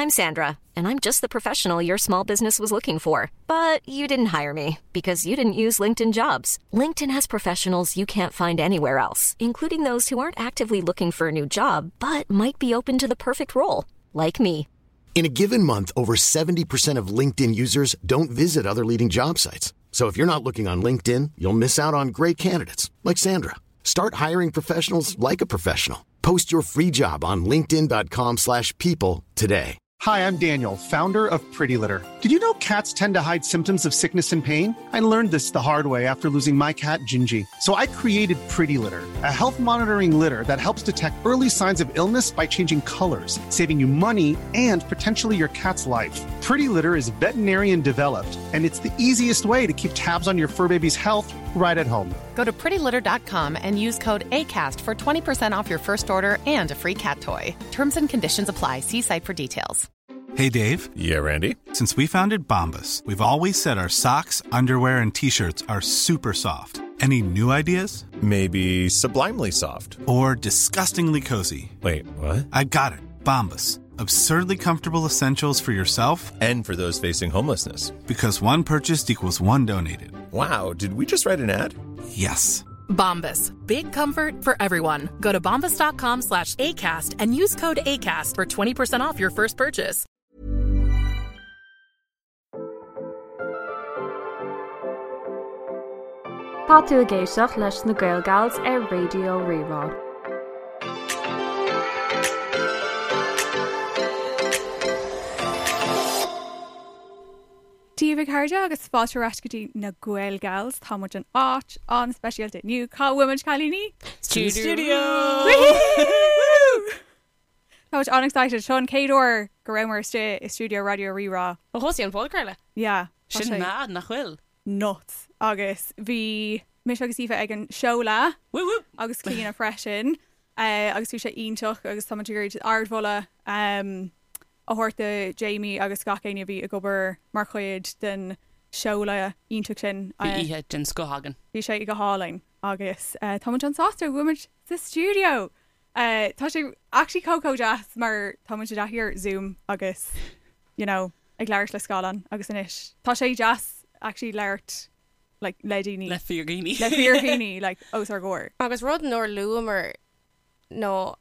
I'm Sandra, and I'm just the professional your small business was looking for. But you didn't hire me because you didn't use LinkedIn jobs. LinkedIn has professionals you can't find anywhere else, including those who aren't actively looking for a new job but might be open to the perfect role, like me. In a given month, over 70% of LinkedIn users don't visit other leading job sites. So if you're not looking on LinkedIn, you'll miss out on great candidates like Sandra. Start hiring professionals like a professional. Post your free job on linkedin.com/people slash people today. Hi, I'm Daniel, founder of Pretty Litter. Did you know cats tend to hide symptoms of sickness and pain? I learned this the hard way after losing my cat, Gingy. So I created Pretty Litter, a health monitoring litter that helps detect early signs of illness by changing colors, saving you money and potentially your cat's life. Pretty Litter is veterinarian developed, and it's the easiest way to keep tabs on your fur baby's health right at home. Go to prettylitter.com and use code ACAST for 20% off your first order and a free cat toy. Terms and conditions apply. See site for details. Hey, Dave. Yeah, Randy. Since we founded Bombus, we've always said our socks, underwear, and t shirts are super soft. Any new ideas? Maybe sublimely soft. Or disgustingly cozy? Wait, what? I got it. Bombus. Absurdly comfortable essentials for yourself And for those facing homelessness. because one purchased equals one donated. Wow, did we just write an ad? Yes. Bombas. Big comfort for everyone. Go to bombas.com slash ACAST and use code ACAST for 20% off your first purchase. Tá tú ag éisteacht leis na Gael Gals ar Raidió Rí-Rá. Dia daoibh a chairde agus fáilte ar ais go dtí na Gael Gals. Tá muid in áit an-speisialta inniu. Cá bhfuil muid cailíní? Studio! Tá muid an-excited. Seo an chéad uair go rabhamar istigh i stiúideo Raidió Rí-Rá. Ó thosaigh an podchraoladh. Yeah. tá Sin sé mad, nach bhfuil? nuts. Agus bhí mise agus Aoife ag an seoladh Woo woo! agus Clíona freisin agus bhí sé iontach agus tá muid ag iarraidh ardmholadh a thabhairt do Jamie agus gach éinne a bhí ag obair mar chuid den seoladh iontach sin. Bhí oíche den scoth againn. Bhí sé go hálainn agus tá muid an-sásta go bhfuil muid sa stiúideo. Tá sé actually chomh chomh deas mar tá muid i dtaithí ar Zoom agus you know ag labhairt le scáileán agus anois tá sé deas actually labhairt like le daoine. Le fíordhaoine. Le fíordhaoine like os ár gcomhair. Agus rud nár luamar nó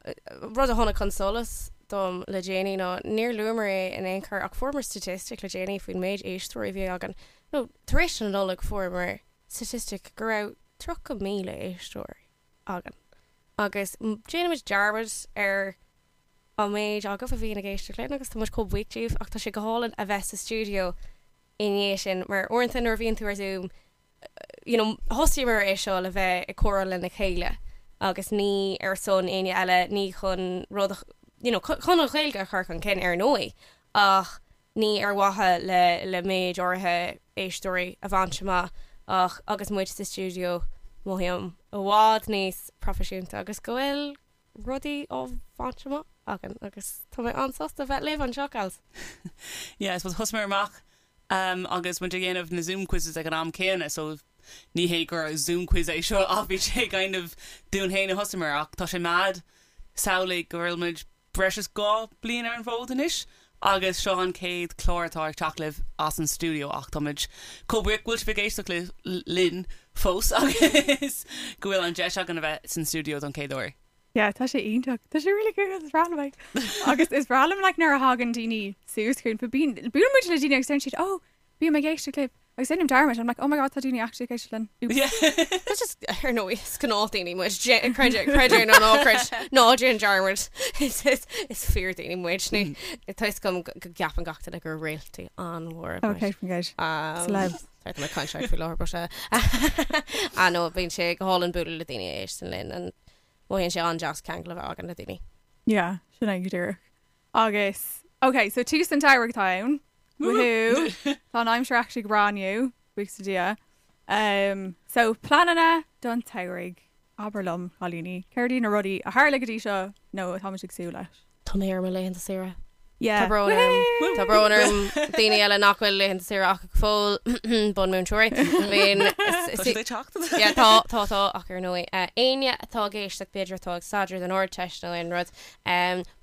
rud a tháinig chun solais dom le déanaí ná níor luamar é in aon chor ach fuaireamar statistic le déanaí faoin méid éisteoirí a bhí againn. Nó tar éis na Nollag fuaireamar statistic go raibh 30,000 éisteoir againn. Agus déanaimid dearmad ar an méid agaibh a bhíonn ag éisteacht linn agus tá muid chomh buíoch díobh ach tá sé go hálainn a bheith sa stiúideo i ndiaidh sin mar uaireanta nuair a bhíonn tú ar Zoom you know, thosaíomar é seo le bheith ag comhrá lena chéile agus ní ar son éinne eile, ní chun rud a, you know, chun an Ghaeilge a chur chun cinn ar ndóigh ach ní ar mhaithe le le méid áirithe éisteoirí a bhaint amach ach agus muid sa stiúideo mothaím i bhfad níos proifisiúnta agus go bhfuil rudaí á bhaint amach againn agus tá mé an-sásta bheith libh anseo, gals. Yeah, I suppose thosaíomar amach um, agus muid ag déanamh na Zoom quizzes ag an am céanna so ní hé gur Zoom quiz é seo ach bhí sé kind of dúinn féin a thosaíomar ach tá sé mad samhlaigh go bhfuil muid breis is 2 bliain ar an bhfód anois agus seo an chéad chlár atá ag teacht libh as an stiúideo ach tá muid chomh buíoch go bhfuil sibh ag éisteacht linn fós agus go bhfuil an deis againn a bheith san stiúideo don chéad uair. Yeah, tá sé iontach. Tá sé really cool, is breá liom é. Agus is breá liom like nuair a thagann daoine suas chugainn, but bíonn, buaileann muid le daoine agus deireann siad, oh, bím ag éisteacht libh. Agus déanaim dearmad, I'm like, oh my god, tá daoine actually ag éisteacht linn. Oops. Yeah. That's just, ar ndóigh, is gnáthdhaoine muid. Dé- Creid é, creid é nó ná creid, ná déan dearmad. Is, is, is fíordhaoine muid. Ní, tá fhios agam go go gceapann gach duine gur réaltaí an-mhóra muid. Okay, faoin gcéad. Um, Celebs. Sorry, tá mé ag caint faoi láthair, but uh, ah no, bíonn sé go hálainn bualadh le daoine a éisteann linn and mothaíonn sé an-deas ceangal a bheith againn le daoine. Yeah, sin é go díreach. Agus, ok, so tús an tsamhraidh atá ann. Woohoo! Tá an aimsir actually go breá inniu, buíochas le Dia. Um, so pleananna don tsamhraidh. Abair liom, cailíní, céard iad na rudaí a tharla go dtí seo nó atá muid ag súil leis? Tá mé ar mo laethanta saoire. Yeah. Tá brón orm. Tá brón orm daoine eile nach bhfuil laethanta saoire acu go fóill, bunmhúinteoirí. Bíonn Tá siad ag teacht. Yeah, tá, tá, tá, ach ar ndóigh, éinne atá ag éisteacht, b'fhéidir atá ag staidéar don Ardteist nó aon rud,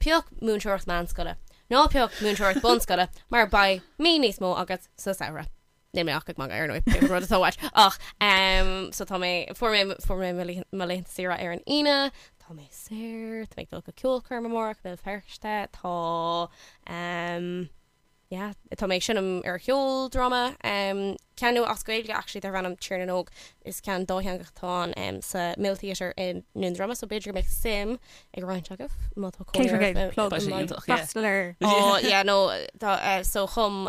pioc múinteoireacht meánscoile. Ná pioc múinteoireacht bunscoile mar beidh mí níos mó agat sa samhradh. Níl mé ach ag magadh ar ndóigh, pé rud atá uait. Ach ehm so tá mé, fuair mé, fuair mé mo mo laethanta saoire ar an Aoine, tá mé saor, tá mé ag dul go ceolchoirm amárach i mBéal Feirste, tá ehm yeah, tá mé ag seinm ar cheoldráma, ceann nua as Gaeilge actually darb ainm Tír na nÓg. Is ceann dátheangach atá ann sa Mill Theatre i nDún Droma so b'fhéidir go mbeadh suim ag roinnt agaibh má tá cónaí oraibh Plug. Freastal air. Oh yeah no tá so chum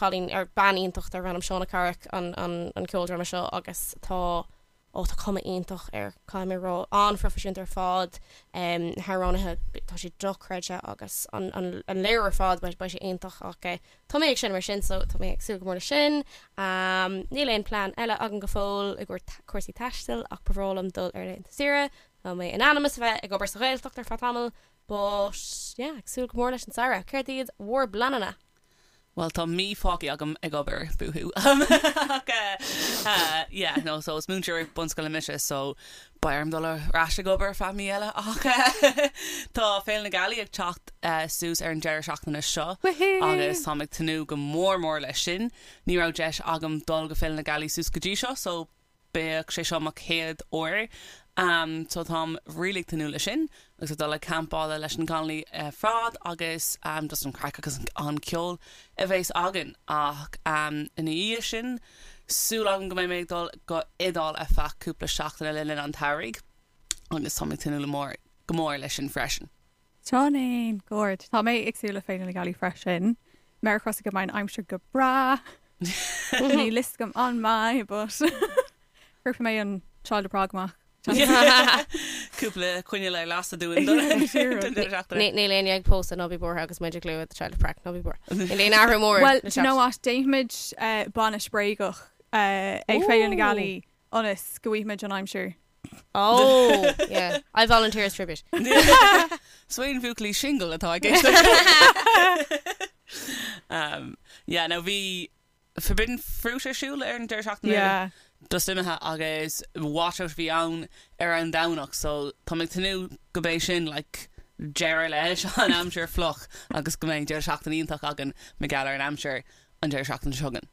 cailín ar bean iontach darb ainm Shauna Carrick an an an ceoldráma seo agus tá Ó, tá cuma iontach air, caithfidh mé a rá. An-phroifisiúnta ar fad, na hamhránaithe, tá siad dochreidte agus an léiriú ar fad, beidh sé iontach ach tá mé ag seinm ar sin so tá mé ag súil go mór leis sin. Níl aon plean eile agam go fóill i gcomhair cúrsaí taistil ach ba bhreá liom dul ar laethanta saoire. Tá mé in ainm is a bheith ag obair sa Ghaeltacht ar feadh tamaill but yeah, ag súil go mór leis an samhradh. Céard iad bhur bpleananna? Bhuel, tá mí fágtha agam ag obair, boohoo. Ach yeah, no, so is múinteoir bunscoile mise, so beidh orm dul ar ais ag obair ar feadh mí eile. Ach tá Féile na Gealaí ag teacht suas ar an deireadh seachtaine seo agus táim ag tnúth go mór mór leis sin. Ní raibh deis agam dul go Féile na Gealaí suas go dtí seo, so Beidh sé seo mo chéad uair so táim really ag tnúth leis sin agus ag dul ag campála leis na Connolly ar fad agus just an craic agus an ceol a bheas againn ach ina dhiaidh sin súil agam go mbeidh mé ag dul go Iodáil ar feadh cúpla seachtaine le linn an tsamhraidh agus táim ag tnúth go mór leis sin freisin. Sin é, go hard. Tá mé ag súil le Féile na Gealaí freisin. Méar crosa go mbeidh an aimsir go breá. Níl fhios agam an mbeidh, but cuirfidh mé an Child of Prague amach. Cúpla coinneal ar lasadh dúinn don deireadh seachtaine. Níl éinne ag pósadh, ná bí buartha agus muid ag lua The Child of Prague, ná bí buartha. Níl aon athrú mór Well, do you know what? Déanfaimid bainis bréagach ag Féile na Gealaí ionas go bhfaighimid an aimsir. Oh, yeah. I volunteer as tribute. So aon bhuachaillí singil atá ag éisteacht. Um, yeah, now bhí Forbidden Fruit ar siúl ar an deireadh seachtaine Yeah. just imithe agus washout a bhí ann ar an Domhnach so tá mé ag tnúth go mbeidh sin like deireadh leis an aimsir fliuch agus go mbeidh deireadh seachtaine iontach againn mar gheall ar an aimsir an deireadh seachtaine seo chugainn.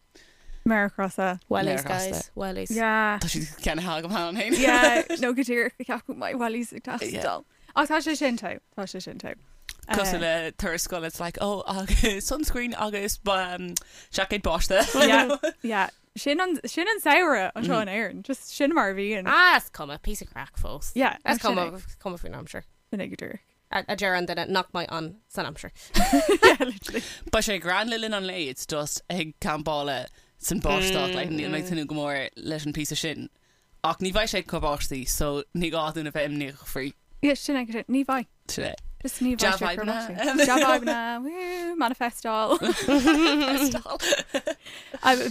Méar crosa. Wellies, guys. Wellies. Yeah. Tá siad ceannaithe agam cheana féin. Yeah, nó go díreach go ceapadh my wellies ag teastáil. Ach tá sé sin togha. Tá sé sin togha. Cosúil le turas scoile, it's like, oh, agus sunscreen agus um, seaicéad báistí. Yeah, yeah. Sin an, sin an samhradh anseo in Éirinn. Just sin mar a bhíonn. Ah, is cuma, piece of craic fós. Yeah, Is sin cuma, é. is cuma faoin aimsir. Sin é go díreach. A deir an duine nach mbeidh ann san aimsir. Yeah, literally. Beidh sé grand le linn an lae, it's just ag campála san báisteach, like, níl mé ag tnúth go mór leis an píosa sin. Ach ní bheidh sé ag cur báistí, so ní gá dúinn a bheith imníoch faoi. Yeah, sin é go díreach. Ní bheidh. Sin é. Just ní bheidh sé ag cur Dea-fhadhbanna. báistí. Dea-fhadhbanna, woo, manifestáil. Manifestáil.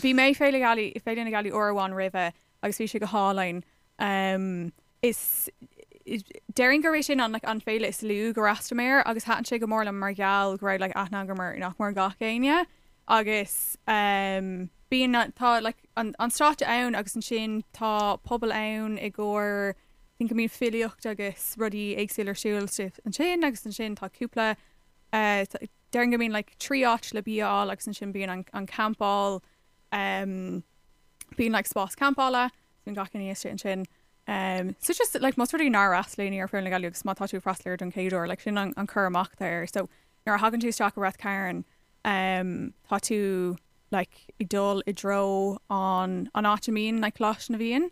Bhí mé Féile Gealaí, Féile na Gealaí uair amháin roimhe agus bhí sé go hálainn. Um, Is déarfainn gurb é sin an like an féile is lú gur fhreastail mé air agus thaitin sé go mór liom mar gheall go raibh like aithne agam ar nach mór gach éinne agus um bíonn tá like an an stáitse ann agus ansin tá puball ann i gcomhair I think go mbíonn filíocht agus rudaí éagsúla ar siúl ansin agus ansin tá cúpla eh déarfainn go mbíonn like 3 áit le bia a fháil agus ansin bíonn an an campáil um bíonn like spás campála Bíonn gach éinne istigh ansin. Um, so just like más rud é nár fhreastail éinne ar Féile na Gealaí agus má tá tú ag freastal air don chéad uair, like sin an, an cur amach atá air. So nuair a thagann tú isteach i Rath Cairn, um, tá tú like ag dul i dtreo an, an áit a mbíonn like Coláiste na bhFiann,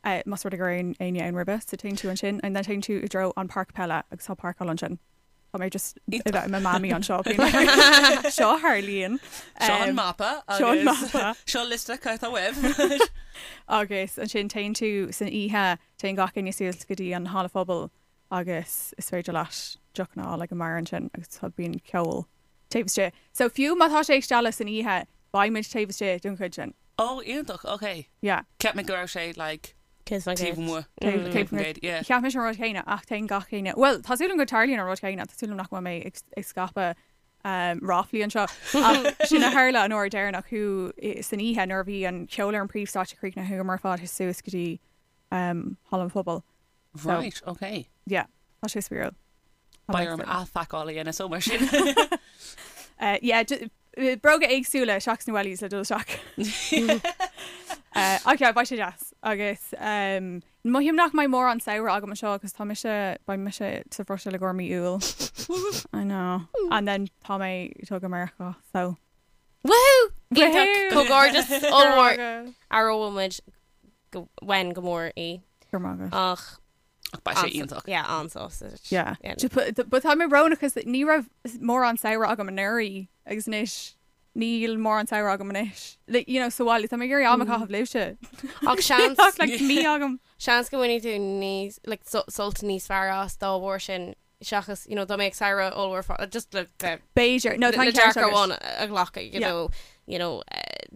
uh, más rud é go raibh éinne ann roimhe, so téann tú ansin and then téann tú i dtreo an páirc peile agus tá páirceáil ansin. Tá mé just ag bheith i mo mamaí anseo being like, seo a tharlaíonn. Seo an mapa Seo an agus mapa. seo liosta cad atá uaibh. Agus ansin téann tú san oíche, téann gach éinne suas go dtí an halla phobail agus is féidir leat deochanna a fháil ag an mbeár ansin agus tá bíonn ceol taobh istigh. So fiú má tá sé ag stealladh san oíche, beidh muid taobh istigh don chuid sin. Ó, iontach, ok. Yeah. Cheap mé go raibh sé like Taobh amuigh. Taobh amuigh. Yeah. Cheap mise an rud céanna ach téann gach éinne, bhuel, tá súil agam go dtarlaíonn an rud céanna, tá súil agam nach bhfuil mé ag scaipeadh ráflaí anseo ach sin a tharla an uair deireanach thú san oíche nuair a bhí an ceol ar an príomhstáitse críochnaithe chuamar ar fad suas go dtí Halla an Phobail. Right, ok. Yeah, tá sé spraíúil. Beidh orm athphacáil a dhéanamh so mar sin. Uh, yeah, eh, bróga éagsúla seachas na wellies le dul isteach. Uh, ach yeah, beidh sé deas agus um, mothaím nach mbeidh mórán samhradh agam anseo agus tá mise beidh mise sa Bhruiséil i gcomhair mí Iúil. I know. And then tá mé ag dul go Meiriceá, so. Woohoo! Iontach, comhghairdeas ollmhór. Aireoidh muid go uainn go mór í. Go raibh maith agat. Ach Ach beidh sé iontach. Yeah, an-sásta. Yeah. But tá mé brónach cos ní raibh mórán samhradh agam anuraidh agus anois níl mórán samhradh agam anois. Like, you know, sa bhaile, tá mé ag iarraidh am a chaitheamh libhse. Ach seans Ach like mí agam. Seans go mbainfidh tú níos like sult níos fearr as dá bharr sin seachas, you know, dá mbeadh samhradh ollmhór fá just le le B'fhéidir. No, tá le an ceart dearcadh agat. amháin a ghlacadh, you Yeah. know, you know, eh,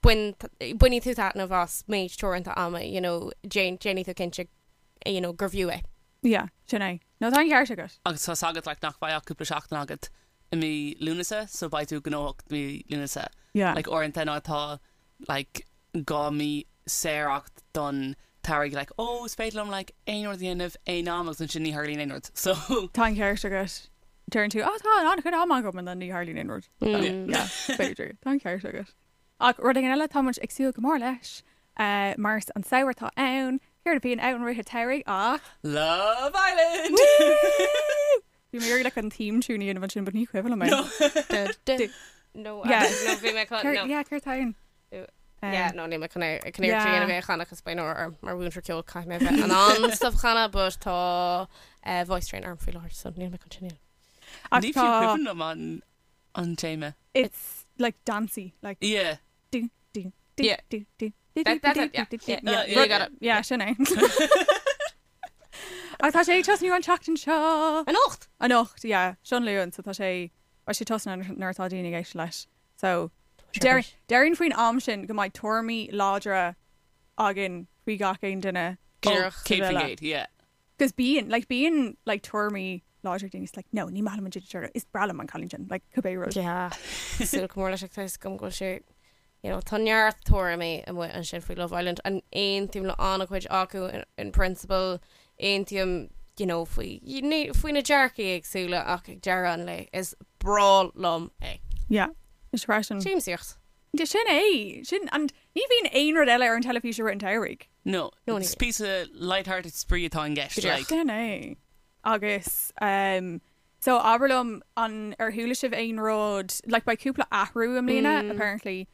bain bainfidh tú taitneamh as méid teoranta ama, you know, déan déanfaidh tú cinnte you know, gur bhfiú é. Yeah, sin é. No, tá an ceart agat. Agus tá's agat like nach mbeidh ach cúpla seachtain agat i mí Lúnasa so beidh tú gnóthach mí Lúnasa. Yeah. Like uaireanta nuair atá like 2 mí saor agat don tsamhradh like oh is féidir liom like aon rud a dhéanamh aon am agus ansin ní tharlaíonn aon rud so. Tá an ceart agat. Deireann tú oh tá an-chuid ama agam and then ní tharlaíonn aon rud. Yeah, b'fhéidir. Tá an ceart agat. Ach rud éigin eile tá muid ag súil go mór leis mar is an samhradh atá ann, céard a bhíonn ann i rith an tsamhraidh ach. Love Island! Bhí mé ag iarraidh like an theme tune a dhéanamh ansin but ní cuimhin liom é. No, Yeah. no, bhí mé chun, no. Yeah, céard atá ann? Yeah, no, níl mé chun é, chun iarracht a dhéanamh é a chanadh cos beidh náire orm mar mhúinteoir ceoil caithfidh mé a bheith in ann stuff a chanadh but tá eh, voice train orm faoi láthair so níl mé chun sin a dhéanamh. Ach Ní fiú tá cuimhin liom an an téama. It's like dancey, like Yeah. do do do Yeah. do do do That- do that's do it, yeah, do do yeah. yeah. You got it. Yeah, sin é. Ach tá sé ag tosnú an tseachtain seo. Anocht! Anocht, yeah. Seo an Luan, so tá sé beidh sé tosnaithe nuair atá daoine ag éisteacht leis. So deir déarfainn faoin am sin go mbeidh tuairimí láidre againn faoi gach aon duine. Oh, Díreach. 100%, yeah. Cos bíonn, like bíonn like tuairimí láidre ag daoine, it's like no, ní maith liom an Ginger Turtle, is breá liom an cailín sin, like cibé rud. Yeah. Súil go mór leis ach tá fhios agam go bhfuil sé, you know, tá neart tuairimí amuigh ansin faoi Love Island and aontaím le an-chuid acu in, in principle, aontaím, you know, faoi, faoi na dearcaí éagsúla ach ag deireadh an lae is breá liom é. Yeah, is freisin. Siamsaíocht. De sin é, sin, and ní bhíonn aon rud eile ar an teilifís i rith an tsamhraidh. No, No, ní is píosa light-hearted spraoi atá i gceist, like. Sin é. Agus, um, so abair liom an ar chuala sibh aon rud, like beidh cúpla athrú i mbliana, apparently.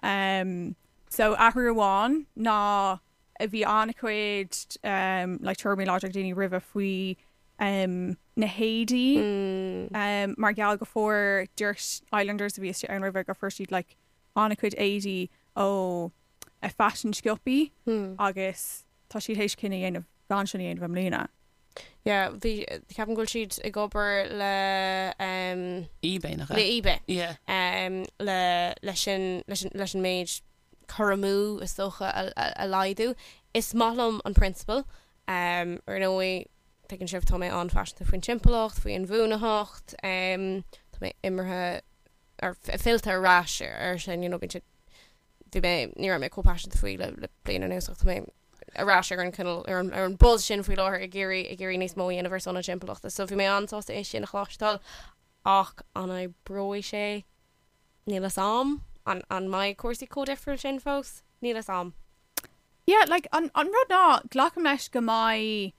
Um, so athrú amháin ná a bhí an-chuid um, like tuairimí láidre ag daoine roimhe faoi um, na héadaí um, mar gheall go fuair dúirt Islanders a bhí istigh ann roimhe go fuair siad like an-chuid éadaí ó a fashion siopaí agus tá siad théis cinneadh a dhéanamh gan sin a dhéanamh i mbliana. Yeah, bhí, ceapaim go bhfuil siad ag obair le um, eBay nach le ea? eBay. Yeah. Um, le, leis an, leis an, leis an méid cur amú is dócha a, a, a laghdú. Is maith liom an prionsabal. Um, ar ndóigh, tuigeann sibh, tá mé an-phaiseanta faoin timpeallacht, faoi inbhuanaitheacht, um, tá mé imithe ar fillte ar ais ar sin, you know, bíonn sé bhí mé, ní raibh mé chomh paiseanta faoi le, le bliain anuas ach tá mé ar ais ar an cineál, ar an, ar an buzz sin faoi láthair ag iarraidh, ag iarraidh níos mó a dhéanamh ar son na timpeallachta. So bhí mé an-sásta é sin a chloisteáil ach an oibreoidh sé? Níl fhios a'm. An, an mbeidh cúrsaí chomh difriúil sin fós? Níl fhios a'm. Yeah, like, an, an rud ná, glacaim leis go mbeidh,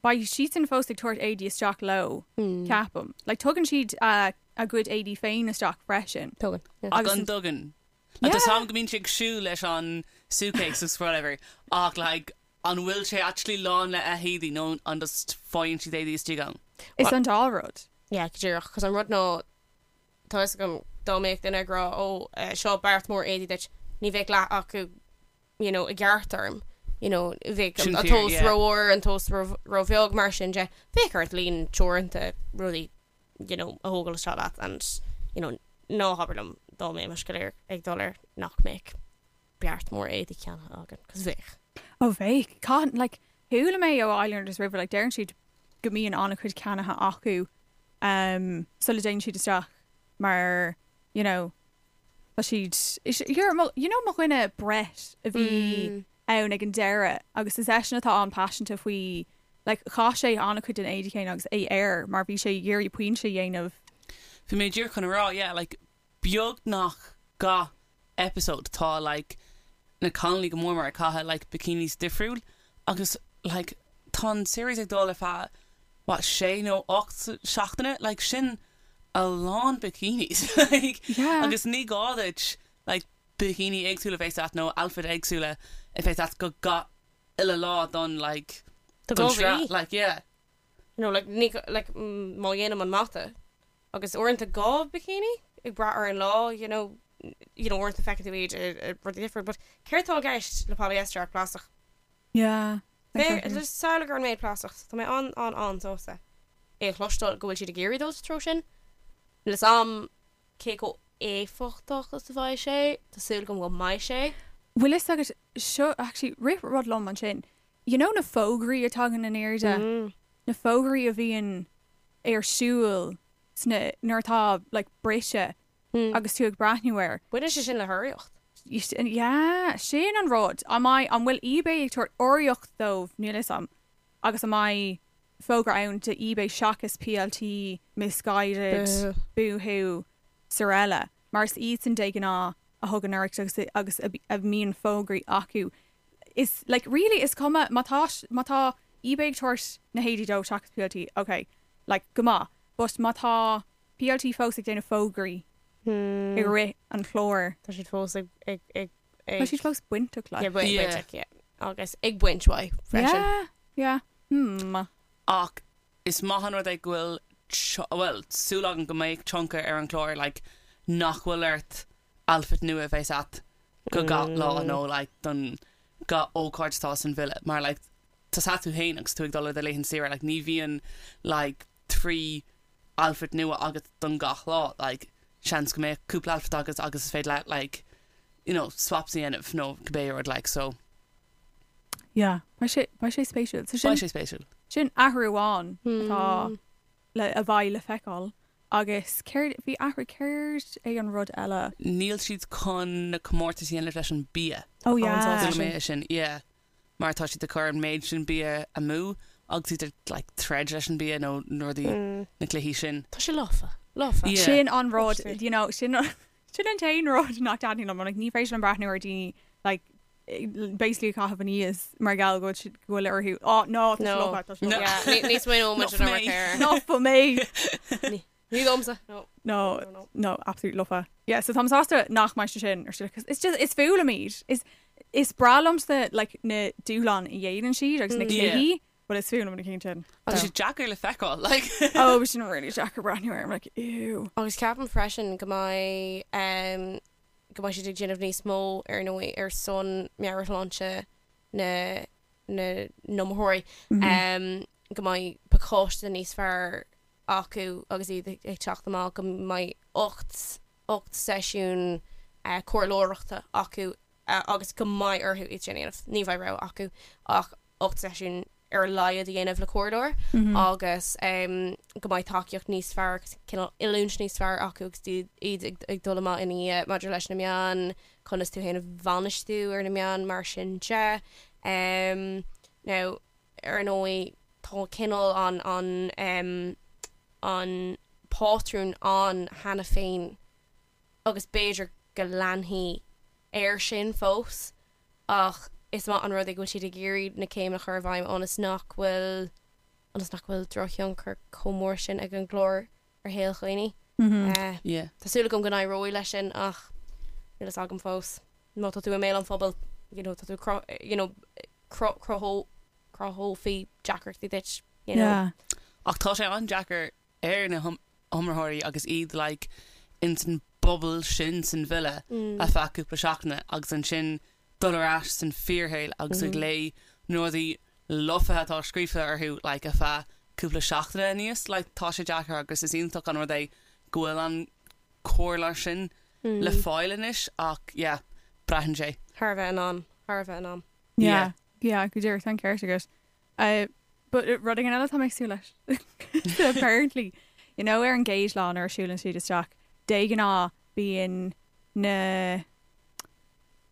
beidh siadsan fós ag tabhairt éadaí isteach leo, ceapaim. Like, tugann siad a, a gcuid éadaí féin isteach freisin. Tugann, yeah. Agus An dtugann? Like, tá 'fhios a'm go mbíonn sé ag siúl leis an suitcase agus whatever, ach like, an bhfuil sé actually lán le éadaí nó an just faigheann siad éadaí istigh ann? Is an dá rud. Yeah, go díreach, 'cause an rud ná, tá fhios agam dá mbeadh duine ag rá ó, eh, seo beart mór éadaí duit, ní bheadh leath acu, you know, i gceart orm, you know, bheadh Sin an fíor, tomhas yeah. rómhór, an tomhas róbheag, mar sin de, bheadh ort líon teoranta rudaí, you know, a thógáil isteach leat and, you know, ná habair liom dá mbeimis go léir ag dul air nach mbeadh beart mór éadaí ceannaithe againn, 'cause bheadh. Ó bheadh. Caithfidh, like, chuala mé ó Islanders roimhe, like, deireann siad go mbíonn an-chuid ceannaithe acu um, sula dtéann siad isteach mar, you know, tá siad, is, here, mo, you know mo dhuine Brett a bhí ann ag an deireadh agus is eisean atá an-paiseanta faoi, like, chaith sé an-chuid den éadaí céanna agus é air mar bhí sé ag iarraidh pointe a dhéanamh. Bhí mé díreach chun a rá, yeah, like, beagnach gach episode tá like na cailíní go mór mór ag caitheamh like bikinis difriúil agus like tá an series ag dul ar feadh what sé nó 8 seachtaine like sin a lán bikinis like Yeah. agus ní gá duit like bikini éagsúla a bheith agat nó outfit éagsúla a bheith agat go gach uile lá don like Do don go sraith mhí. like yeah. You know, like, ní, like, má dhéanaim an mata agus uaireanta 2 bikini ag brath ar an lá, you know, you know, uaireanta feiceann tú iad i rudaí difriúil, but céard atá i gceist le polyester ach plaisteach? Yeah, exactly. Just samhlaigh ar an méid plaisteach, so tá mé an, an, an-sásta é a chloisteáil go bhfuil siad ag iarraidh dul sa treo sin. Níl fhios a'm cé chomh éifeachtach is a bheidh sé, tá súil agam go mbeidh sé. Bhfuil fhios agat, seo, actually, rith rud liom ansin, You know na fógraí a tagann in airde, na fógraí a bhíonn ar siúl sna, nuair atá like briseadh agus tú ag breathnú air. Baineann sé sin le hurraíocht. Yeah, sin an rud. An mbeidh, an bhfuil eBay ag tabhairt urraíocht dóibh, níl fhios a'm, agus an mbeidh fógra ann do eBay seachas PLT, Missguided, Boohoo, Sorella, mar is iadsan de ghnáth a thugann urraíocht agus agus a mbíonn fógraí acu. Is like really is cuma má tá má tá eBay ag tabhairt na héadaí dóibh seachas PLT ok like go maith but má tá PLT fós ag déanamh fógraí i rith an chláir. Tá siad fós ag ag ag ag Tá siad fós bainteach like. Yeah bainteach yeah agus ag baint uaidh freisin. Yeah yeah hmm. Ach is maith an rud é go bhfuil bhuel súil agam go mbeidh tionchar ar an chlár like nach bhfuil ort outfit nua a bheith agat go gach lá nó like don gach ócáid atá san villa mar like tá a fhios agat féin agus tú ag dul ar do laethanta saoire like ní bhíonn like 3 outfit nua agat don gach lá like seans go mbeadh cúpla outfit agat agus is féidir leat like you know swaps a dhéanamh nó cibé rud like so Yeah, beidh sé beidh sé spéisiúil. So sin beidh sé spéisiúil. Sin athrú amháin atá le a bheidh le feiceáil. Agus céard, bhí athrú, céard é an rud eile? Níl siad chun na comórtais a dhéanamh leis an bia. Oh yeah. Chuala mé é sin, yeah. Mar tá siad ag cur an méid sin bia amú agus iad ag like troid leis an bia nó na rudaí, na cluichí sin. Tá sé lofa, lofa. Yeah. Sin an rud, you know, sin sin an t-aon rud nach dtaitníonn liom, like ní féidir liom breathnú ar daoine like basically ag caitheamh aníos mar gheall go bhfuil orthu oh no tá sé lofa tá sé lofa. Yeah, ní smaoineoidh muid ar an air. Ná for me. Ní domsa. No. No, no, absolute lofa. Yeah, so táim sásta nach mbeidh sé sin ar siúl 'cause it's just is fuath liom iad. Is is breá liomsa like na dúshláin a dhéanann siad agus na cluichí, but is fuath liom na cinn sin. Tá sé deacair le feiceáil, like. Oh, bhí sin really deacair breathnú air. I'm like, ew. Agus ceapaim freisin go mbeidh um, go mbeidh siad ag déanamh níos mó ar ndóigh ar son meabhairshláinte na na n-iomaitheoirí, go mbeidh pacáiste níos fearr acu agus iad ag teacht amach, go mbeidh 8 8 seisiún comhairleoireachta acu agus go mbeidh orthu iad sin a dhéanamh, ní bheidh rogha acu ach 8 seisiún ar a laghad a dhéanamh le comhairleoir agus go mbeidh tacaíocht níos fearr agus cineál oiliúint níos fearr acu agus iad ag dul amach ina dhiaidh maidir leis na meáin, conas tú féin a bhainistiú ar na meáin mar sin de. Now, ar ndóigh, tá cineál an an an pátrún ann cheana féin agus b'fhéidir go leanfaidh air sin fós. ach is maith an rud é go bhfuil siad ag iarraidh na céimeanna a chur i bhfeidhm ionas nach bhfuil ionas nach bhfuil drochthionchar chomh mór sin ag an gclár ar shaol dhaoine. Yeah. Tá súil agam go n-éireoidh leis sin ach níl fhios agam fós. Má tá tú i mbéal an phobail, you know, tá tú cru- you know, cru- cruthó- cruthófaí deacrachtaí duit, you know. Yeah. Ach tá sé an-deacair ar na hiomaitheoirí agus iad like ins an bubble sin san villa ar feadh cúpla seachtaine agus ansin dul ar ais san fíorshaol agus ag léamh na rudaí lofa atá scríofa orthu like ar feadh cúpla seachtaine aníos like tá sé deacair agus is iontach an rud é go bhfuil an comhairle sin le fáil anois ach yeah braitheann sé. Thar a bheith in am, thar a bheith in am. Yeah, yeah, go díreach, tá an ceart agat. But rud éigin eile atá mé ag súil leis. Apparently, you know ar an gcéad lá nuair a siúlann siad isteach, de ghnáth bíonn na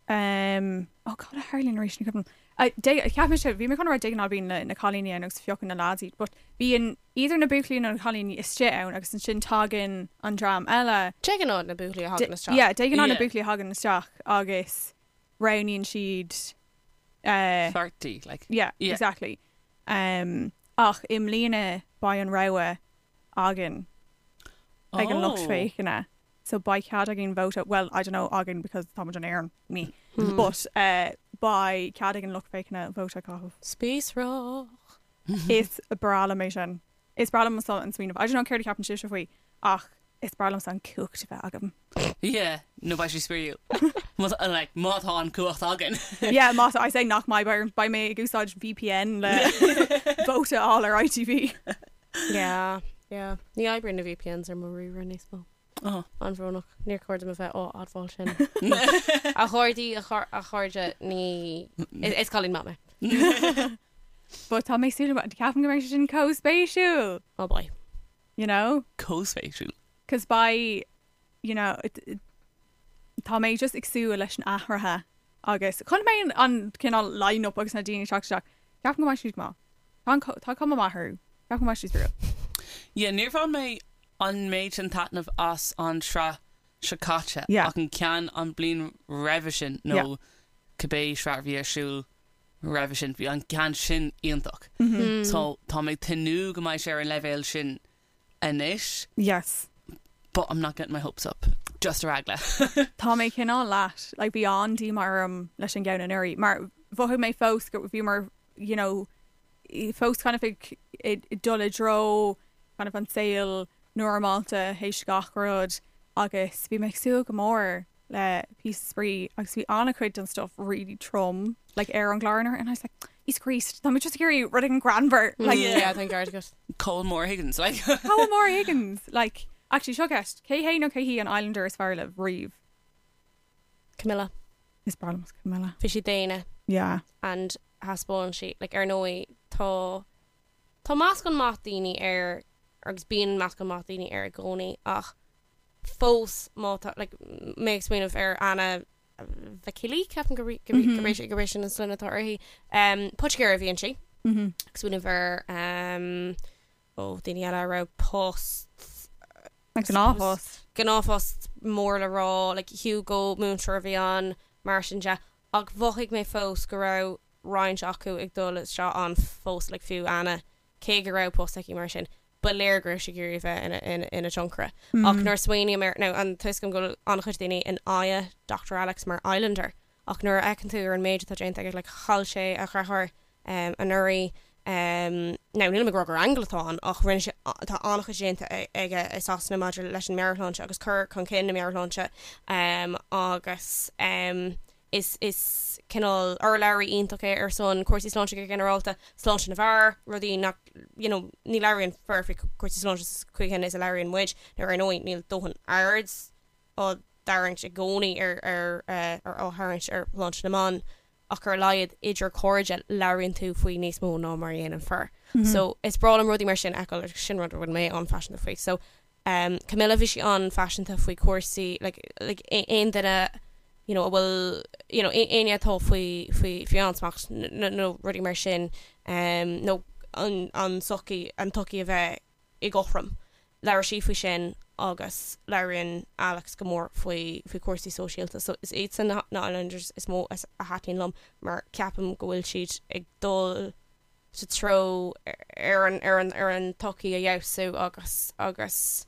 um, oh cad a tharlaíonn arís ní cuimhin liom. Cheap mise, bhí mé chun a rá de ghnáth bíonn na cailíní ann agus piocann na lads iad, but bíonn either na buachaillí nó na cailíní istigh ann agus ansin tagann an dream eile. De ghnáth na buachaillí a thagann isteach. Yeah, de ghnáth na buachaillí a thagann isteach agus roghnaíonn siad. Pháirtí, like. Yeah, exactly. Ach i mbliana beidh an rogha againn ag an lucht féachana. So beidh cead againn vóta, well, I don't know againn because táimid in Éirinn, me, but beidh cead ag an lucht féachana vóta a chaitheamh. Spíosrach. Is breá liom é sin. Is breá liom an smaoineamh. I don't know céard a cheapann sibhse faoi ach is breá liomsa an cumhacht a bheith agam. Yeah, nó beidh sé spraíúil. Like, má tá an cumhacht againn. Yeah, má tá, I say nach mbeidh, beidh mé ag úsáid VPN le vóta a fháil ar ITV. Yeah, yeah. Ní oibríonn na VPNs ar mo ríomhaire níos mó. Oh. An-bhrónach. Níor chóir dom a bheith á admháil sin. A chairde, a chairde, ní... Is cailín maith mé. But tá mé ag súil, ceapaim go mbeidh sé sin chomh spéisiúil. Oh boy. You know? Chomh spéisiúil. Cos beidh, you know, tá mé just ag súil leis an athraithe agus chonaic mé an cineál line-up agus na daoine ag teacht isteach. Ceapaim go mbeidh siad go maith. Tá an tá cuma maith orthu. Ceapaim go mbeidh siad spraíúil. Yeah, níor bhain mé an méid sin taitneamh as an sraith seo caite Yeah. ach an ceann an bliain roimhe sin nó Yeah. cibé sraith a bhí ar siúl roimhe sin, bhí an ceann sin iontach. So tá mé ag tnúth go mbeidh sé ar an leibhéal sin anois. Yes. But I'm not getting my hopes up. Just ar eagla. Tá mé cineál leat, like bhí an-díomá orm leis an gceann anuraidh, mar mhothaigh mé fós go bhíomar, you know, fós kind of ag dul i dtreo kind of an saol normálta théis gach rud agus bhí mé ag súil go mór le píosa spraoi agus bhí an-chuid den stuff really trom like ar an gclár anuraidh and I was like Íosa Críost, tá mé just ag iarraidh rud éigin greannmhar like Yeah, tá an ceart agat. Cole Moore Higgins like. Cole Moore Higgins like actually seo ceist, cé hé nó cé hí an Islander is fearr libh riamh? Camilla. Is breá liom Camilla. Bhí sí daonna. Yeah. And thaispeáin sí like ar ndóigh tá tá meascán maith daoine air agus bíonn meascán maith daoine air i gcónaí ach fós má tá like mé ag smaoineamh ar Anna Vakili, ceapaim gurb é gurb é sin an sloinne atá uirthi. Um, Poitigéir a bhí inti. Ag smaoineamh ar um, ó daoine eile a raibh post Like gnáthphost. Gnáthphost mór le rá, like Hugo múinteoir a bhí ann, mar sin de. Ach mhothaigh mé fós go raibh roinnt acu ag dul isteach ann fós, like fiú Anna, cé go raibh post aici mar sin, ba léir go raibh sí ag iarraidh a bheith ina, ina tionchaire. Ach nuair a smaoiním air, now an tá a fhios agam go bhfuil an-chuid daoine in aghaidh Dr Alex mar Islander, ach nuair a fheiceann tú ar an méid atá déanta aige, like chaill sé a dheartháir anuraidh, now nílim ag rá gur aingeal atá ann ach rinne sé, tá an-chuid déanta aige i Sasana maidir leis an meabhairshláinte agus cur chun cinn na meabhairshláinte agus is is cineál urlabhraí iontach é ar son cúrsaí sláinte go ginearálta, sláinte na bhfear, rudaí nach you know ní labhraíonn fir faoi chúrsaí sláinte sa chaoi chéanna is a labhraíonn muid, nó ar ndóigh níl dóthain aird á dtarraingt i gcónaí ar ar ar á tharraingt ar shláinte na mban ach ar a laghad idir cairde labhraíonn tú faoi níos mó ná mar a dhéanann fir. So is breá liom rudaí mar sin a fheiceáil agus sin rud a bhfuil mé an-phaiseanta faoi. So um Camilla bhí sí an-phaiseanta faoi chúrsaí like like aon duine you know a bhfuil you know éinne atá faoi faoi faoi ansmacht nó rudaí mar sin um nó an an tsochaí an tsochaí a bheith éagothrom. Labhair sí faoi sin agus labhraíonn Alex go mór faoi faoi chúrsaí sóisialta so is iadsan na na Islanders is mó a thaitníonn liom mar ceapaim go bhfuil siad ag dul sa treo ar an ar an ar an tsochaí a fheabhsú agus agus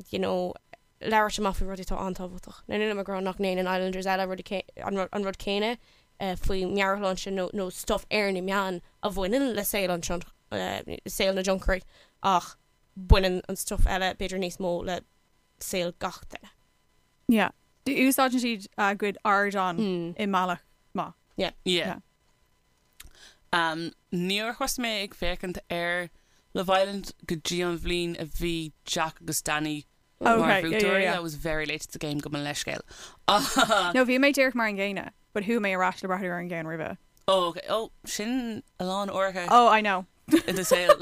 you know labhairt amach faoi rudaí atá an-tábhachtach. Now nílim ag rá nach ndéanann Islanders eile rudaí an rud céanna faoi meabhairshláinte nó nó stuff ar na meáin a bhaineann le saol an saol na dtionchairí ach baineann an stuff eile b'fhéidir níos mó le saol gach duine. Yeah. Úsáideann siad a gcuid ardán i mbealach maith. Yeah. Yeah. Um, níor thosaigh mé ag féachaint ar Love Island go dtí an bhliain a bhí Jack agus Danny mar Okay, yeah, yeah, bhuaiteoirí. yeah. I was very late to the game gabh mo leithscéal. No, bhí mé díreach mar an gcéanna, but chuaigh mé ar ais le breathnú ar an gceann roimhe. Oh, okay. Oh, sin a lán uaireanta. Oh, I know. I do saol.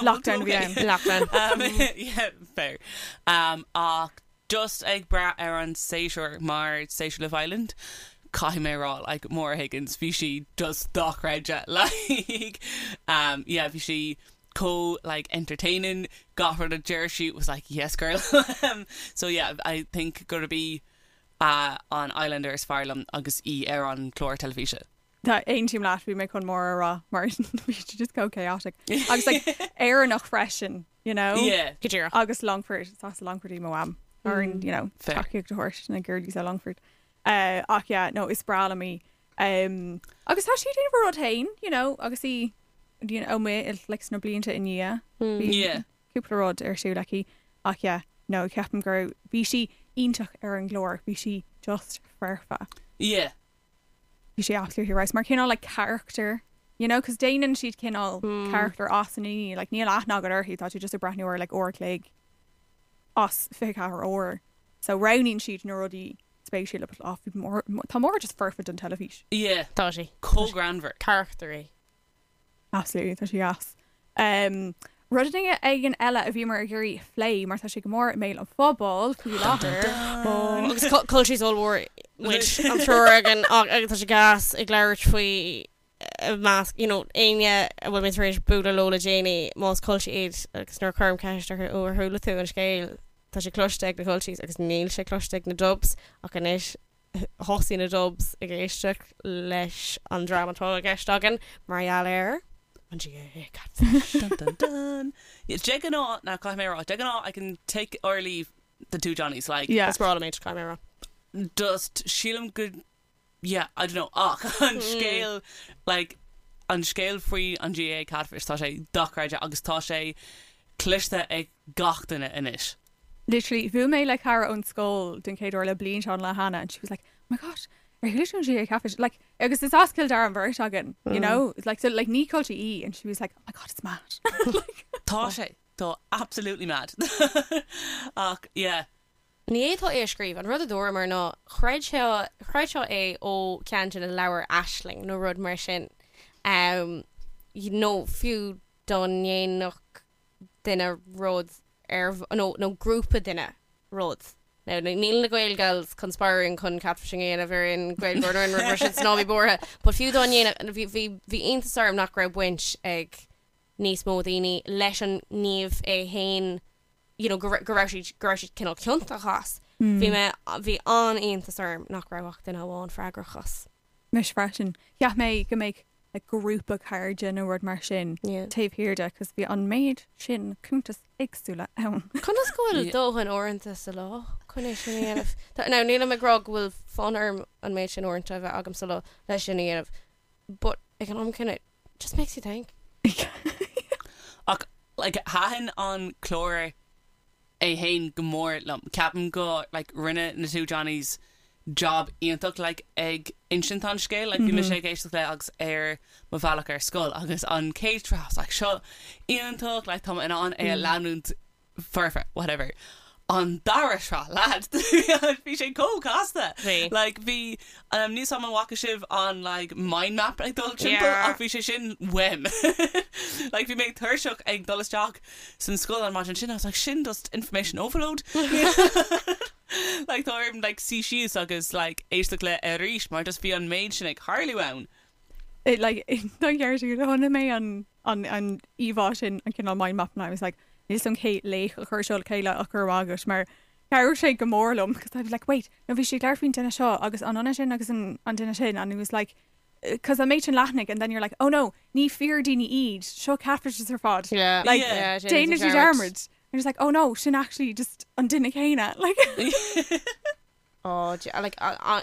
Lockdown a bhí ann. Lockdown. Um, yeah, fair. Um, ach just ag brath ar an séasúr mar séasúr Love Island. caithfidh mé a rá like Maura Higgins bhí sí just dochreidte like um yeah bhí sí chomh like entertaining gach rud a deir sí was like yes girl so yeah I think gurb í uh, an Islander is fearr liom agus í ar an chlár teilifíse. Tá aontaím leat bhí mé chun Maura a rá mar bhí sí just chomh chaotic agus like Éireannach freisin you know? Yeah. Go díreach. Agus Longford is as Longford í mo mham ar an you know Fair. tacaíocht a thabhairt na girlies ó Longford. Uh, ach yeah, no, is breá liom í. Um, agus tá sí ag déanamh a rud féin, you know, agus í you know, amuigh like, sna blianta i ndiaidh. Bhí Yeah. cúpla rud ar siúl aici. Ach yeah, no, ceapaim go raibh bhí sí iontach ar an gclár, bhí sí just foirfe. Yeah. Bhí sí absolutely right. Mar cineál like character, you know, cos déanann siad cineál character as an daoine, like níl aithne agat uirthi, tá tú just ag breathnú air like uair a chloig as 24 uair. So roghnaíonn siad na rudaí spéisiúla but ah, bhí Maura, tá Maura just foirfe don teilifís. Yeah. Tá sí. Chomh greannmhar. Character í. Absolutely, tá sí deas. Um, rud éigin eile a bhíomar ag iarraidh a phlé mar tá sé go mór i mbéal an phobail faoi láthair. Agus culchies ollmhór muid an triúr againn agus tá sé gas ag labhairt faoi i measc you know éinne a bhfuil mé tar éis bualadh leo le déanaí más culchie iad agus nuair a chuirim ceist orthu ó ar chuala tú an scéal tá sé cloiste ag na culchies agus níl sé cloiste ag na dubs ach anois thosaigh na Dubs ag éisteacht leis an dream atá i gceist againn mar gheall ar an GAA Catfish. Dun dun dun. Yeah, de ghnáth, now caithfidh mé a rá, de ghnáth I can take or leave the two Johnnies, like, Yeah. Is breá liom iad, caithfidh mé a rá. just sílim go, yeah, I don't know, ach an scéal, like, an scéal faoi an GAA Catfish, tá sé dochreidte agus tá sé cloiste ag gach duine anois. Literally, bhuail mé le cara ón scoil den chéad uair le blianta an lá cheana and she was like, oh my gosh, ar chuala tú an GAA Catfish? Like, agus is as Cill Dara an bheirt againn, you know? Like, so, like, ní culchie í and she was like, oh my god, it's mad. Like, Tá sé, tá absolutely mad. Ach, yeah. Ní fhéadfá é a scríobh. An rud a dúramar ná chreid sé, chreidfeá é ó cheann de na leabhair Aisling nó rud mar sin. Um, nó fiú dá ndéanfadh duine rud ar, nó, nó grúpa duine rud. Now, níl na Gael Gals conspiring chun catfishing a dhéanamh ar aon Ghaeilgeoir nó aon rud mar sin, so ná bí buartha. But fiú dá ndéanfadh, bhí, bhí, bhí iontas orm nach raibh baint ag níos mó daoine leis an ngníomh é fhéin, you know, go, go raibh siad, go raibh siad cineál ciontach as. Bhí mé, bhí an-iontas orm nach raibh ach duine amháin freagrach as. Mise freisin. Cheap mé go mbeadh like grúpa cairde nó rud mar sin Yeah. taobh thiar de cos bhí an méid sin cuntas éagsúla ann. Conas go bhfuil dóthain uaireanta sa lá chun é sin a dhéanamh? Tá, now nílim ag rá go bhfuil fonn orm an méid sin uaireanta a bheith agam sa lá leis sin a dhéanamh, but ag an am céanna, it just makes you think. Ach like thaitin an clár é fhéin go mór liom. Ceapaim go like rinne na two Johnnies job iontach like ag insint an scéil. Like bhí mise ag éisteacht le agus ar mo bhealach ar scoil agus an chéad sraith I was like seo iontach like tá mé in ann é a leanúint foirfe whatever. An dara sraith lad bhí sé chomh casta. Bhí. Like bhí um, níl a fhios agam an bhfaca sibh an like mind map ag dul timpeall Yeah. ach bhí sé sin uaim. Like bhí mé tuirseach ag dul isteach san scoil an maidin sin I was like sin just information overload. Like tá orm like suí síos agus like éisteacht le arís mar just bhí an méid sin ag tarlú ann. It like don cheart agat chonaic mé an an an íomhá sin an cineál mind map and I was like níl a fhios agam cé laoch a chuir seo le chéile ach go raibh maith agat mar chabhraigh sé go mór liom because I was like wait no bhí sé ag labhairt faoin duine seo agus an duine sin agus an an duine sin and it was like because an méid sin leathanaigh and then you're like oh no ní fíor daoine iad seo catfishes ar fad Yeah. like Yeah, déanann siad dearmad and it's like oh no sin actually just an duine céanna like Oh, like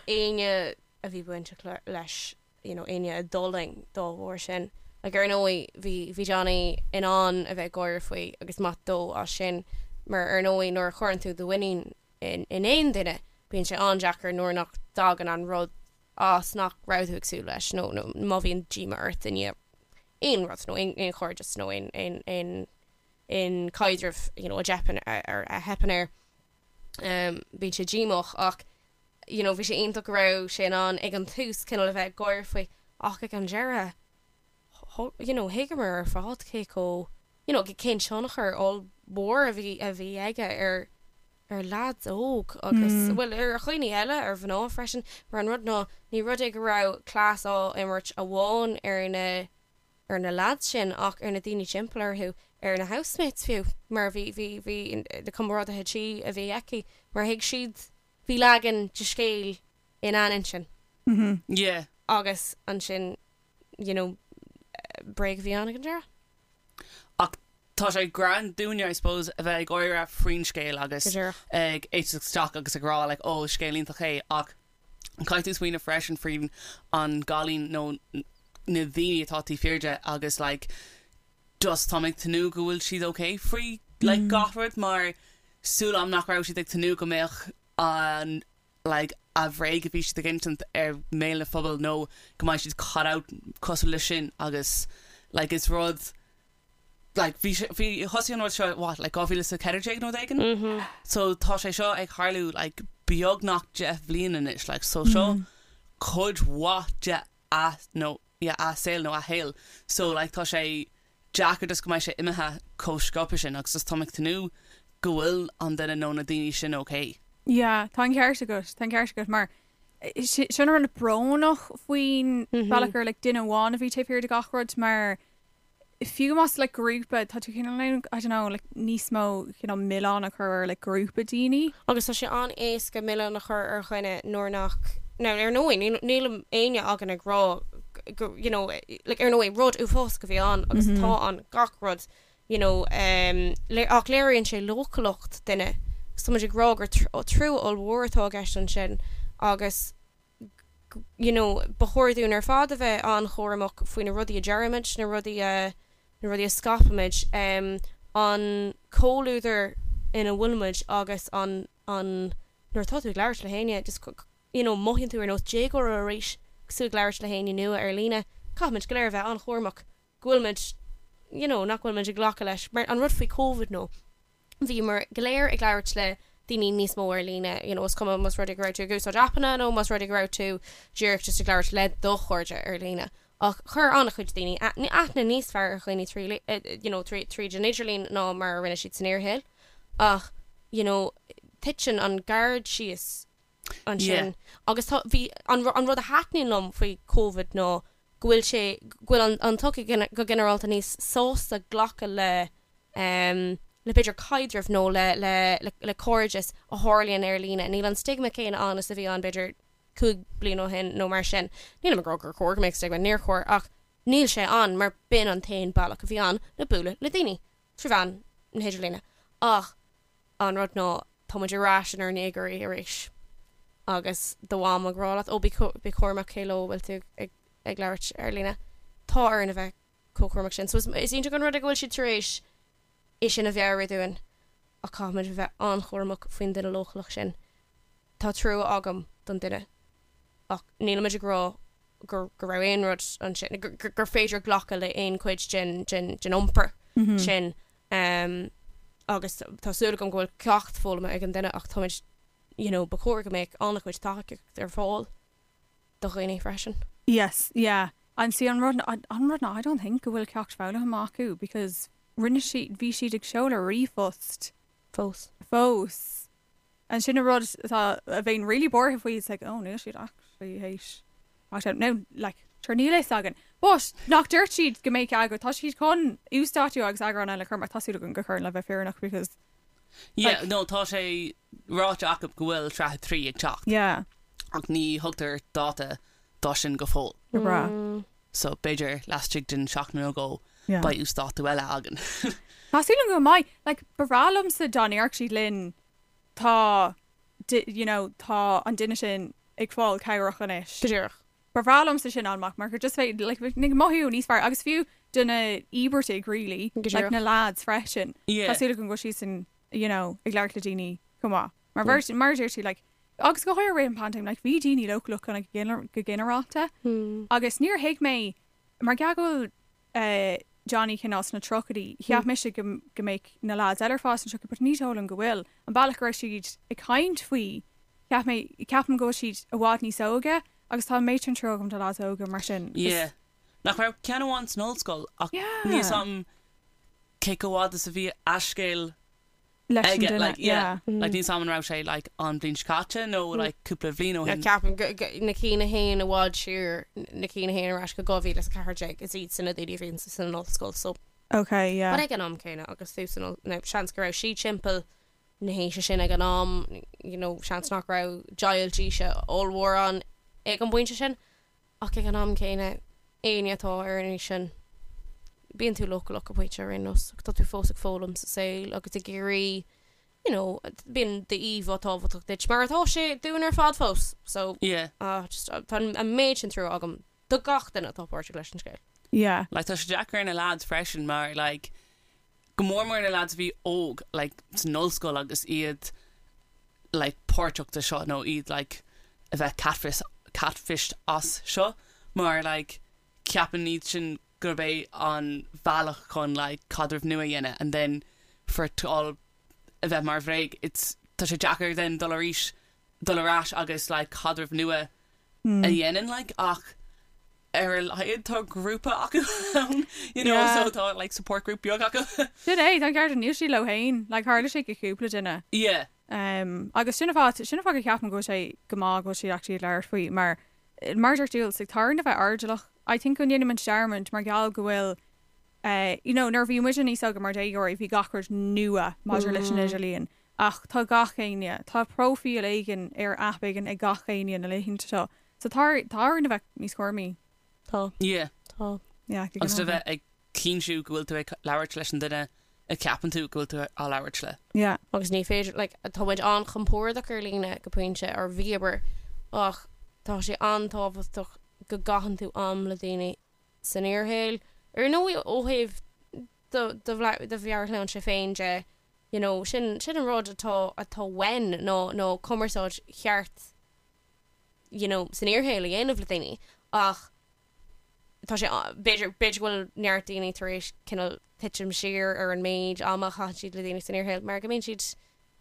éinne a bhí bainteach leis, you know, éinne a d'fhulaing dá bharr sin. Like ar ndóigh bhí bhí Johnny in ann a bheith ag gáire faoi agus maith dó as sin mar ar ndóigh nuair a chuireann tú do mhuinín in in aon duine bíonn sé an-deacair nuair nach dtagann an rud as nach raibh tú ag súil leis nó nó má bhíonn díomá ort i ndiaidh aon rud nó aon aon chairdeas nó aon aon aon aon caidreamh you know a dteipeann ar a theipeann air. Um, bíonn sé díomách ach you know, bhí sé iontach go raibh sé in ann ag an tús cineál a bheith ag gáire faoi ach ag an deireadh you know, thuigeamar ar fad cé chomh you know, cén tionchar ollmhór a bhí a bhí aige ar ar leaids óg agus, bhuel, ar dhaoine eile, ar mhná freisin, mar an rud ná, ní rud é go raibh cleas á imirt amháin ar na, ar na leaids sin ach ar na daoine timpeall orthu, ar na housemates fiú, mar bhí, bhí, bhí na comrádaithe tí a bhí aici, mar thuig siad, bhí leagan de scéal ina n-intinn. Yeah. Agus ansin, you know, bréag a bhí ann ag an deireadh. Ach tá sé grand dúinne, I suppose, a bheith ag gáire faoin scéal agus Go díreach. ag éisteacht isteach agus ag rá like, oh, scéal iontach é ach caithfidh tú smaoineamh freisin faoin an gcailín nó na daoine atá taobh thiar de agus like just táim ag tnúth go bhfuil siad ok faoi like gach rud mar súil agam nach raibh siad ag tnúth go mbeadh an like a bhréag a bhí siad ag insint ar mbéal na phobail nó go mbeidh siad caught out cosúil leis sin agus like is rud like bhí sé bhí thosaigh an rud seo what like 2014 nó rud éigin so tá sé seo ag tarlú like beagnach 10 bhliain anois like so seo cuid mhaith de a nó yeah a saol nó a shaol so like tá sé deacair just go mbeidh sé imithe chomh sciobtha sin agus just táim ag tnúth go bhfuil an duine nó na daoine sin okay. Yeah, tá an ceart agat, tá an ceart agat mar sin an rud brónach faoin bealach gur like duine amháin a bhí taobh thiar de gach rud mar fiú más like grúpa tá tú cineál I don't know like níos mó cineál milleán a chur ar like grúpa daoine. Agus tá sé an-éasca milleán a chur ar dhuine nuair nach, now ar ndóigh níl níl éinne againn ag rá go you know like ar ndóigh rud uafásach a bhí ann agus atá ann gach rud you know um ach léiríonn sé leochaileacht duine agus tá muid ag rá gur trua ollmhór atá i gceist ansin agus you know, ba chóir dúinn ar fad a bheith an-chúramach faoi na rudaí a deirimid, na rudaí a, na rudaí a scaipimid, an comhluadar ina bhfuilimid agus an, an, nuair atá tú ag labhairt le héinne, just, you know, mothaíonn tú ar nós déagóra arís agus tú ag labhairt le héinne nua ar líne. Caithfimid go léir a bheith an-chúramach go bhfuilimid, you know, nach bhfuilimid ag glacadh leis. Mar an rud faoi Covid nó, bhíomar go léir ag labhairt le daoine níos mó ar líne, you know, is cuma más rud é go raibh tú ag úsáid aipeanna nó más rud é go raibh tú díreach just ag labhairt le do chairde ar líne. Ach chuir an-chuid daoine aithne níos fearr ar dhaoine trí, you know, tríd an idirlíon ná mar a rinne siad san fhíorshaol. Ach, you know, titeann an gard síos ansin. Agus tá, bhí, an, an rud a thaitníonn liom faoi Covid ná go bhfuil sé, go bhfuil an, an tsochaí go ginearálta níos sásta glacadh le, le b'fhéidir caidreamh nó le, le, le, le cairdeas a tharlaíonn ar líne. Níl an stigma céanna ann is a bhí ann b'fhéidir 5 bliain ó shin nó mar sin. Nílim ag rá gur chóir go mbeadh stigma, níor chóir, ach níl sé ann mar b'in an t-aon bealach a bhí ann le bualadh le daoine, trí mheán na hidirlíne. Ach an rud ná tá muid ar ais inár ndéagóirí arís agus do mham ag rá leat, ó bí bí cúramach cé leo a bhfuil tú ag ag labhairt ar líne. Tá orainn a bheith chomh cúramach sin. So is is iontach an rud é go bhfuil siad tar éis é sin a mheabhrú dúinn ach caithfimid a bheith an-chúramach faoin duine leochaileach sin. Tá trua agam don duine ach nílimid ag rá gur go raibh aon rud ansin, gur gur féidir glacadh le aon chuid den den den iompar sin. Agus tá súil agam go bhfuil ceacht foghlamtha ag an duine ach táimid, you know, ba chóir go mbeadh an-chuid tacaíocht ar fáil do dhaoine freisin. Yes, yeah. And see an rud, an rud ná I don't think go bhfuil ceacht foghlamtha acu because rinne siad, bhí siad ag seoladh ríomhphost. Fós. Fós. And sin an rud atá, a bheinn really buartha faoi, it's like, oh, níl siad actually théis ceacht fhoghlaim. Now, like, sure níl fhios againn. But, nach dúirt siad go mbeadh eagrán, tá siad chun uasdátú agus eagrán eile a chur amach, tá súil agam gur chuireann le bheith fírinneach because, Yeah, like, no, tá sé ráite acu go bhfuil sraith 3 ag teacht. Yeah. Ach ní thugtar dáta dó sin go fóill. Go breá. So b'fhéidir laistigh den seachtain nó dhó Yeah. beidh uasdátú eile againn. Tá súil agam go mbeidh. Like, ba bhreá liomsa dá ndéarfadh siad linn tá, you know, tá an duine sin ag fáil cabhrach anois. Go díreach. Ba bhreá liomsa sin amach mar gur just bheadh, like, bheadh ag mothú níos fearr agus fiú do na íobartaigh really, Go like díreach. na lads freisin. Yeah. Tá súil agam go bhfuil siadsan, you know, ag labhairt le daoine chomh maith. Mar bheirt, mar a deir tú, like, agus go háirithe i rith an paindéim, like, bhí daoine leochaileach kind of go ginearálta agus níor thuig mé, mar gheall go bhfuil eh, Johnny cineál sna tríochaidí, cheap mise go, go mbeadh na lads eile ar fad sna tríochaidí, but ní dóigh liom go bhfuil. An bealach go raibh siad ag caint faoi, cheap mé, ceapaim go bhfuil siad i bhfad níos óige agus tá an méid sin trua agam do lads óga mar sin. Yeah. Nach raibh ceann amháin san ollscoil ach Yeah. níl 'fhios a'm cé chomh fhada is a bhí a scéal. Leis an aige, duine, like, yeah. yeah. Like, níl 's a'm an raibh sé, like, an bhliain seo caite nó, like, cúpla bhliain ó shin. Ceapaim go, go, na cinn a théann i bhfad siar, na cinn a théann ar ais go 2014, is iad sin na daoine a bhíonn san ollscoil, so. Okay, yeah. But ag an am céanna, agus tú san oll, now, seans go raibh sí timpeall na haoise sin ag an am, you know, seans nach raibh deighilt aoise ollmhór ann ag an bpointe sin, Ach ag an am céanna, éinne atá ar an aois sin, bíonn tú leochaileach go pointe ar aon nós, tá tú fós ag foghlaim sa saol agus ag iarraidh, you know, bíonn d'íomhá tábhachtach duit, mar atá sé dúinn ar fad fós. So, Yeah. ah, just, tá an méid sin trua agam do gach duine atá páirteach leis an scéal. Yeah. Like, tá sé deacair ar na lads freisin mar, like, go mór mór na lads a bhí óg, like, san ollscoil agus iad, like, páirteach de seo nó iad, like, a bheith catfish, catfished as seo mar, like, ceapann iad sin gurb é an bhealach chun, like, caidreamh nua a dhéanamh and then for it to all a bheith mar bhréag, it's, tá sé deacair then dul arís, dul ar ais agus, like, caidreamh nua a dhéanamh, like, ach ar a laghad tá grúpa acu ann, you know, Yeah. so tá, like, support group beag acu. Sin é, tá an ceart níl siad leo féin, like, tharla sé go cúpla duine. Yeah. Um, agus sin an fáth, sin an fáth go ceapaim go bhfuil sé go maith go bhfuil siad actually ag labhairt faoi mar mar a deir Jules, like, tá orainn a bheith airdeallach. I think go ndéanaimid dearmad mar gheall go bhfuil eh, you know, nuair a bhí muid níos óige mar déagóirí bhí gach rud nua maidir leis an idirlíon. Ach tá gach éinne, tá próifíl éigin ar aip éigin ag gach éinne na laethanta seo. So tá tá orainn a bheith níos cúramaí. Tá. Yeah. Tá. Yeah, go Agus a ginearálta. bheith ag cinntiú go bhfuil tú ag labhairt leis an duine a cheapann tú go bhfuil tú á labhairt le. Yeah. Agus ní féidir, like, tá muid an-chompordach ar líne go pointe, or bhíomar, ach tá sé an-tábhachtach go gcaitheann tú am le daoine san fhíorshaol. Ar ndóigh, ó thaobh do do do mheabhairshláinte féin de, you know, sin sin an rud atá atá uainn ná ná cumarsáid cheart you know, san fhíorshaol a dhéanamh le daoine ach tá sé b'fhéidir b'fhéidir go bhfuil neart daoine tar éis cineál titim siar ar an méid ama a chaitheann siad le daoine san fhíorshaol mar go mbíonn siad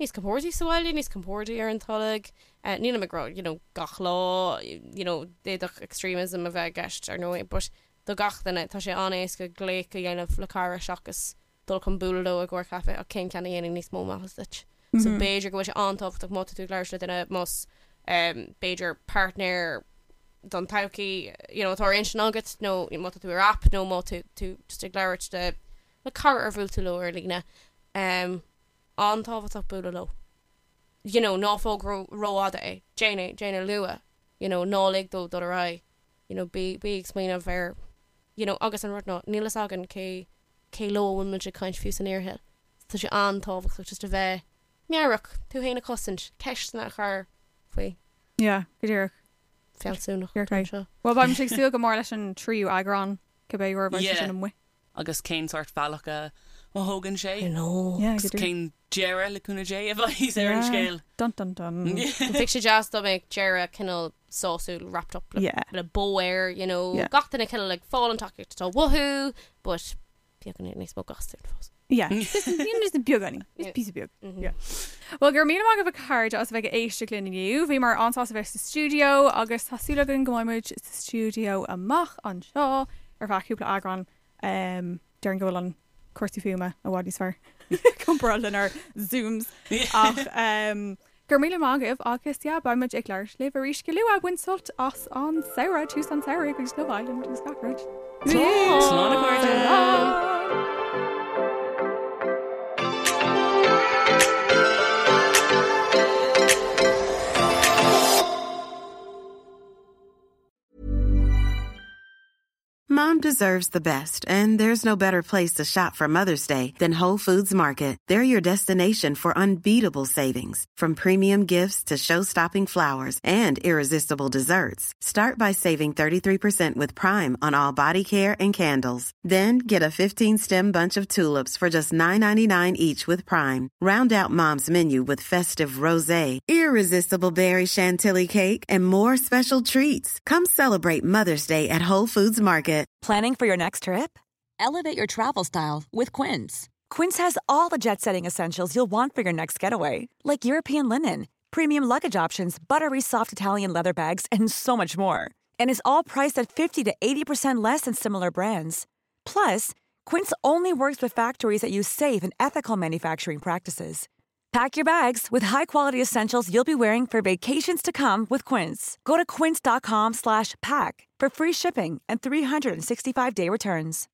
níos compordaí sa bhaile, níos compordaí ar an tolg. Nílim ag rá, you know, gach lá, you know, d'fhéadfadh extremism a bheith i gceist ar ndóigh, but do gach duine, tá sé an-éasca glaoch a dhéanamh le cara seachas dul chun bualadh leo i gcomhair caife ach cén ceann a dhéanann níos mó maitheas duit? So b'fhéidir go bhfuil sé an-tábhachtach má tá tú ag labhairt le duine, más b'fhéidir páirtnéir don todhchaí you know atá ar intinn agat nó má tá tú ar aip nó má tá tú just ag labhairt le le cara ar bhuail tú leo ar líne um, an-tábhachtach bualadh leo. You know, ná fág rófhada é, déan é, déan é luath, you know, ná lig dó dul ar aghaidh, you know, bí, bí ag smaoineamh ar, you know, agus an rud ná, níl fhios againn cé cé leo a bhfuil muid ag caint fiú san fhíorshaol. Tá sé an-tábhachtach just a bheith meabhrach, tú féin a chosaint, ceisteanna a chur faoi. Yeah, go díreach. Fealsúnacht You're right. anseo. Well, beidh mise ag súil go mór leis an tríú eagrán, cibé uair a bheidh sé Yeah. sin amuigh. Agus cén sórt bhealach a thógann sé. I know. Yeah, Agus go díreach. cén deireadh le cúnamh Dé a bheidh ar an Yeah. scéal. Dun dun dun. Bheadh sé deas dá mbeadh deireadh cineál sásúil wrapped up le, Yeah. le bow air, you know, Yeah. gach duine cineál ag fáil an tacaíocht atá uathu, but beagán níos mó gastúil fós. Yeah. Just just beagáinín. Just píosa beag. Mhm. Yeah. Well, go raibh míle maith agaibh a chairde as a bheith ag éisteacht linn inniu. Bhíomar an-sásta bheith sa stiúideo agus tá súil againn go mbeidh muid sa stiúideo amach anseo ar feadh cúpla eagrán. Um, Déarfainn go bhfuil an cúrsaí fuaime i bhfad níos fearr comparáid lenár Zooms. Ach um, go raibh míle maith agaibh agus yeah, beidh muid ag labhairt libh arís go luath. Bain sult as an samhradh, tús an samhraidh agus Love Island agus gach rud. Slán a chairde. Slán. Mom deserves the best, and there's no better place to shop for Mother's Day than Whole Foods Market. They're your destination for unbeatable savings, from premium gifts to show-stopping flowers and irresistible desserts. Start by saving 33% with Prime on all body care and candles. Then get a 15-stem bunch of tulips for just $9.99 each with Prime. Round out Mom's menu with festive rosé, irresistible berry chantilly cake, and more special treats. Come celebrate Mother's Day at Whole Foods Market. Planning for your next trip? Elevate your travel style with Quince. Quince has all the jet setting essentials you'll want for your next getaway, like European linen, premium luggage options, buttery soft Italian leather bags, and so much more. And is all priced at 50 to 80% less than similar brands. Plus, Quince only works with factories that use safe and ethical manufacturing practices. Pack your bags with high-quality essentials you'll be wearing for vacations to come with Quince. Go to quince.com slash pack for free shipping and 365-day returns.